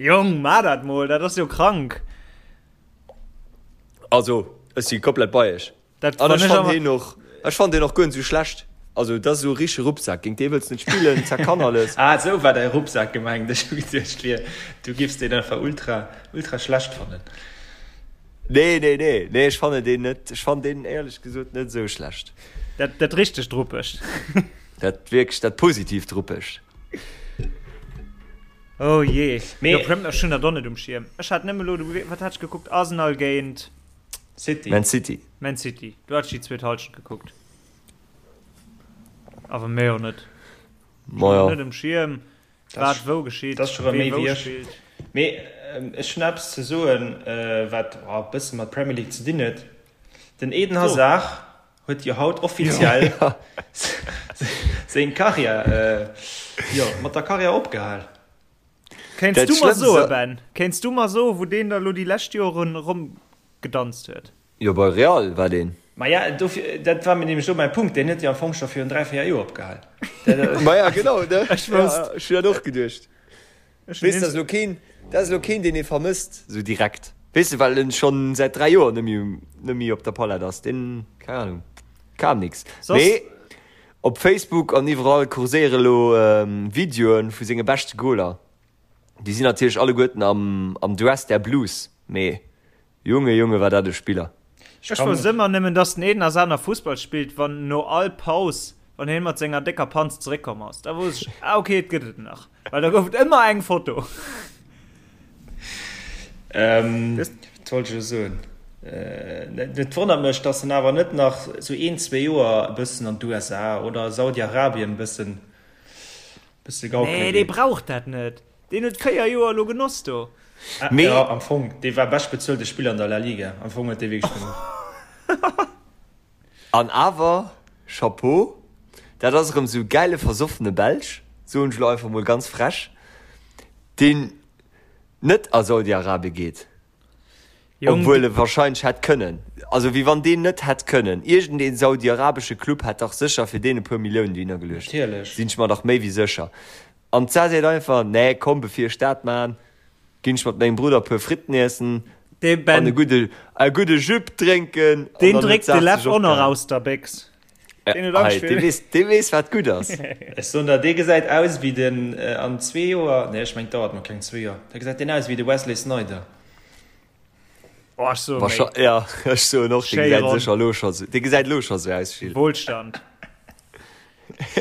Speaker 3: Jong, maa dat mol, dat ass jo krank.
Speaker 4: Also ech si komplett bei iech.
Speaker 3: Dat
Speaker 4: An
Speaker 3: wann
Speaker 4: ech
Speaker 3: ech
Speaker 4: fannen
Speaker 3: awer
Speaker 4: heen och, ech fannen deen och guer net sou schlecht. Also dat ass esou e richtege Ruppsak, géint dee wëlls de net spillen, zack kann alles.
Speaker 5: Ah esou war däi Ruppsak gemengt, ech hu geduecht wier du giffs deen einfach ultra ultra schlecht fannen.
Speaker 4: Nee nee nee nee ech fannen deen net, ech fannen deen éierlech gesot net esou schlecht.
Speaker 3: Dat dat richtegt Ruppegt.
Speaker 4: Dat wierklech dat positiivt Ruppegt.
Speaker 3: Oh jee,
Speaker 5: Mee
Speaker 3: jo ech hunn dat och net um Schierm. Ech hat nëmme elo, wat hat ech gekuckt, Arsenal géint.
Speaker 5: City.
Speaker 4: Man City.
Speaker 3: Man City. Do hat ech déi zweet Halschent gekuckt. Awer méi och net.
Speaker 4: Ma ja.
Speaker 3: Net um Schierm, wat wou geschitt,
Speaker 5: Dat ass scho rëm
Speaker 3: wee
Speaker 5: méi
Speaker 3: wou
Speaker 5: wéi ech.
Speaker 3: spillt.
Speaker 5: Mee ech hunn eppes ze soen, wat e bësse mat Premier League ze dinn huet. Den Eden Hazard huet jo haut offiziell seng Karriär, jo, mat der Karriär opgehal.
Speaker 3: Kéints du mer soen, Ben, kéints du mer soen, wou deen da lo déi lescht Joren eromgedanzt huet?
Speaker 4: Jo, bei Real war deen.
Speaker 5: Maja, dofir, dat war mir nämlech elo mäi Punkt, deen huet jo am Fong scho virun 3, 4 Joer opgehal.
Speaker 4: Maja, genau, ne? Ech wousst. Ech hunn dat och geduecht. Weess, dat ass elo keen, dat ass elo keen, deen ee vermësst, esou direkt. Weess de, well en schonn säit 3 Joer net méi, net méi op der Palett ass. Deen, keng Ahnung, kam nix. Mee op Facebook an iwwerall kurséiere elo Videoe vu senge beschte Goler. Déi sinn natierlech alleguerten am, am Dress der Blues, mee Junge, Junge, war dat e Spiller.
Speaker 3: Ech wousst ëmmer nëmmen, dass den Eden Hazard nach Fussball spillt, wann no all Paus, wann hien mat senger décker Panz zeréckkomm ass. Da wousst ech, ah ok, et gëtt et nach. Well da gouf et ëmmer eng Foto.
Speaker 5: Wat wollt ech elo soen? Et wonnert mech, dass en awer net nach sou een, zwee Joer e bëssen an d'USA oder Saudi-Arabien e bëssen, bësse
Speaker 3: gaukele geet. Nee, dee brauch dat net. Deen huet 4 Joer elo genoss do.
Speaker 5: Mee jo, am Fong, dee war beschtbezuelte Spiller an der La Liga. Am Fong huet dee wierklech genuch.
Speaker 4: An awer, Chapeau, dat ass erëm esou e gäile versoffene Belsch, soen ech elo einfach mol ganz frech, deen net a Saudi-Arabie geet, obwuel e wahrscheinlech hätt kënnen. Also wéi wann deen net hätt kënnen. Iergendee saudi-arabesche Club hätt dach sécher fir deen e puer Milliounen dohinner geluecht.
Speaker 5: Natierlech.
Speaker 4: Sinn ech mer dach méi wéi sécher. An d'Sa seet einfach, Nee, komm, bevir ech dat maan, ginn ech mat mengem Brudder e puer Fritten iessen an e gudde, e gudde Jüpp drénken.
Speaker 3: An Deen dann huet dréckt de d'Saach Leff sech och nach
Speaker 4: opgehal.
Speaker 3: aus der Béchs.
Speaker 4: Deen huet Angscht Hei, dee weess, dee weess, wat gutt ass.
Speaker 5: Ech soen der, dee gesäit aus wéi den, an zwee Joer, nee, ech meng, et dauert nach keng zwee Joer, da gesäit deen aus wéi de Wesley Sneijder.
Speaker 3: Oh, ech soe méi.
Speaker 4: Ja, ech soen och, dee gesäit sécher elo scho sou, dee gesäit elo scho sou aus,
Speaker 3: Gilles. Wohlstand.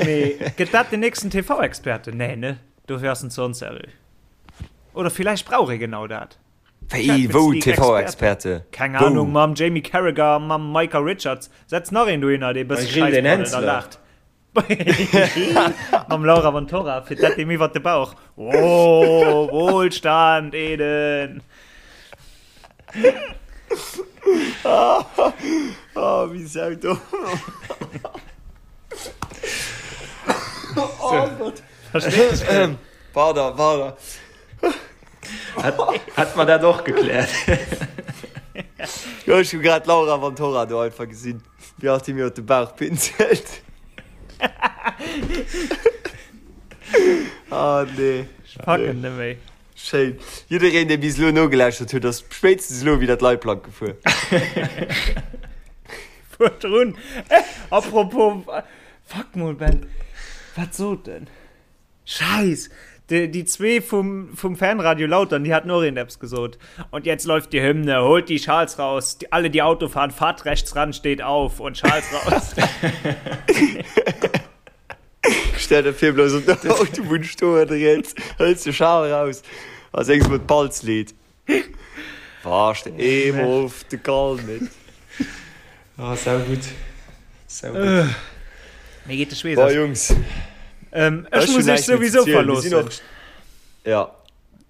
Speaker 3: Mee gëtt dat den nächsten TV-Experte? Nee, ne? Dofir ass en ze onseriö. Oder villäicht brauch ee genau dat.
Speaker 4: Wéi, wou TV-Experte?
Speaker 3: Keng Ahnung, mam Jamie Carragher, mam Micah Richards. Setz nach een dohinner, dee bësse
Speaker 5: Schäiss braddelt a laacht.
Speaker 3: Mam Laura Vantorra fir dat deem iwwer de Bauch. Oh, Wohlstand, Eden!
Speaker 4: Oh, wéi saudomm. Oh Gott.
Speaker 3: Verstees du?
Speaker 4: Pardon, pardon.
Speaker 5: Hätt mer dat och gekläert.
Speaker 4: Jo, ech hu grad d'Laura Vantorra do einfach gesinn. Wéi alt hie mir op de Bauch pinselt. Ah nee.
Speaker 3: Ech packen net méi.
Speaker 4: Schéin. Jiddereen, dee bis elo nogelauschtert huet, ass spéitstens elo widder d'Leitplank gefuer.
Speaker 3: Fuer drun. Apropos, fuck mol Ben, wat sot en? Scheiss! Déi, déi zwee vum, vum Fanradio Lautern, déi haten och iergendeppes gesot. Und jetzt läuft die Hymne, holt die Schals raus, die, alle die Auto fahren, fahrt rechts ran, steht auf und Schals raus.
Speaker 4: Stell der vir bloß op der Autobunn stoen, riets, hëls de Schal raus a séngs mol d'Balzlied. Warst eemol auf de Gall mit.
Speaker 5: Ah, sau gutt. Sau gutt.
Speaker 3: Mir geet de Schweess
Speaker 4: Boah, aus. Jungs.
Speaker 3: Ähm, ech muss
Speaker 4: hunn
Speaker 3: iech
Speaker 4: näischt méi ze
Speaker 3: souwisou
Speaker 4: zielen. Mir sinn
Speaker 3: verloossen.
Speaker 4: och. Ja.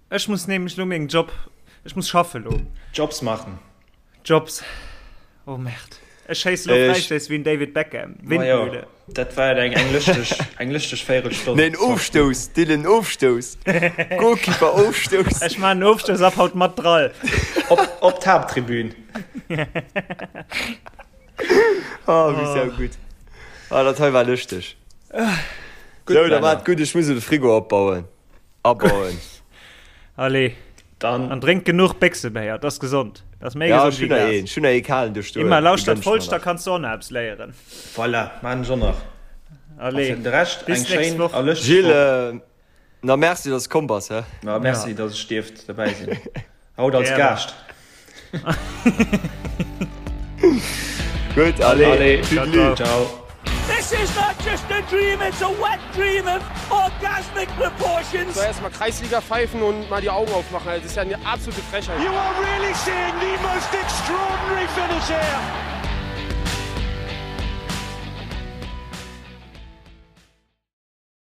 Speaker 3: Ech muss nämlech lo mengem Job, ech muss schaffe lo.
Speaker 5: Jobs machen.
Speaker 3: Jobs. Oh Merde. Ech schéisse lo
Speaker 4: Ech.
Speaker 3: Fräistéiss wéi den David Beckham.
Speaker 5: Ma jo,
Speaker 3: Windmühle.
Speaker 5: dat war eng, eng lëschteg, eng lëschteg Véirelstonn.
Speaker 4: Nee, en Ofstouss, Dylan, Ofstouss. Goalkeeper Ofstouss.
Speaker 3: Ech maachen en Ofstouss ab haut mat Drall.
Speaker 5: Op, op d'Haapttribün.
Speaker 4: Oh, wéi sau gutt. Ah, dat hei war lëschteg.
Speaker 5: Gutt,
Speaker 4: Sou, da
Speaker 5: Männer.
Speaker 4: maat gutt, ech muss elo de Frigo opbauen. Abauen.
Speaker 3: Allez.
Speaker 5: Dann.
Speaker 3: An drénkt genuch Béchsebéier, dat ass gesond. Dat ass méi
Speaker 4: Ja,
Speaker 3: gesond
Speaker 4: ech hunn
Speaker 3: wéi
Speaker 4: nach
Speaker 3: Glas.
Speaker 4: een, ech hunn nach ee kalen do stoen.
Speaker 3: Immer
Speaker 4: Dee
Speaker 3: lauschtert
Speaker 4: gönn ech mer
Speaker 3: Folschter
Speaker 4: nach.
Speaker 3: kanns du och nach eppes léieren.
Speaker 5: Voilà, maan ech och nach. A
Speaker 3: Allez,
Speaker 5: fir de Rescht
Speaker 3: bis
Speaker 5: eng
Speaker 3: d'nächst
Speaker 5: schéin
Speaker 3: Woch.
Speaker 5: a lëschteg
Speaker 4: Gilles,
Speaker 5: Woch.
Speaker 4: na merci, dass du komm bass, hä?
Speaker 5: Ma merci,
Speaker 3: Ja.
Speaker 5: dass ech dierft dobäi sinn. Haut als
Speaker 3: Gären.
Speaker 5: Gaascht.
Speaker 4: Gutt, allez,
Speaker 5: Allez,
Speaker 4: Tüdelü.
Speaker 3: ciao, ciao.
Speaker 5: Ciao.
Speaker 1: This is not just a dream, it's a wet dream of orgasmic proportions.
Speaker 2: So erstmal Kreisliga pfeifen und mal die Augen aufmachen. Also, das ist ja eine absolute Frechheit.
Speaker 1: You are really seeing the most extraordinary finish here.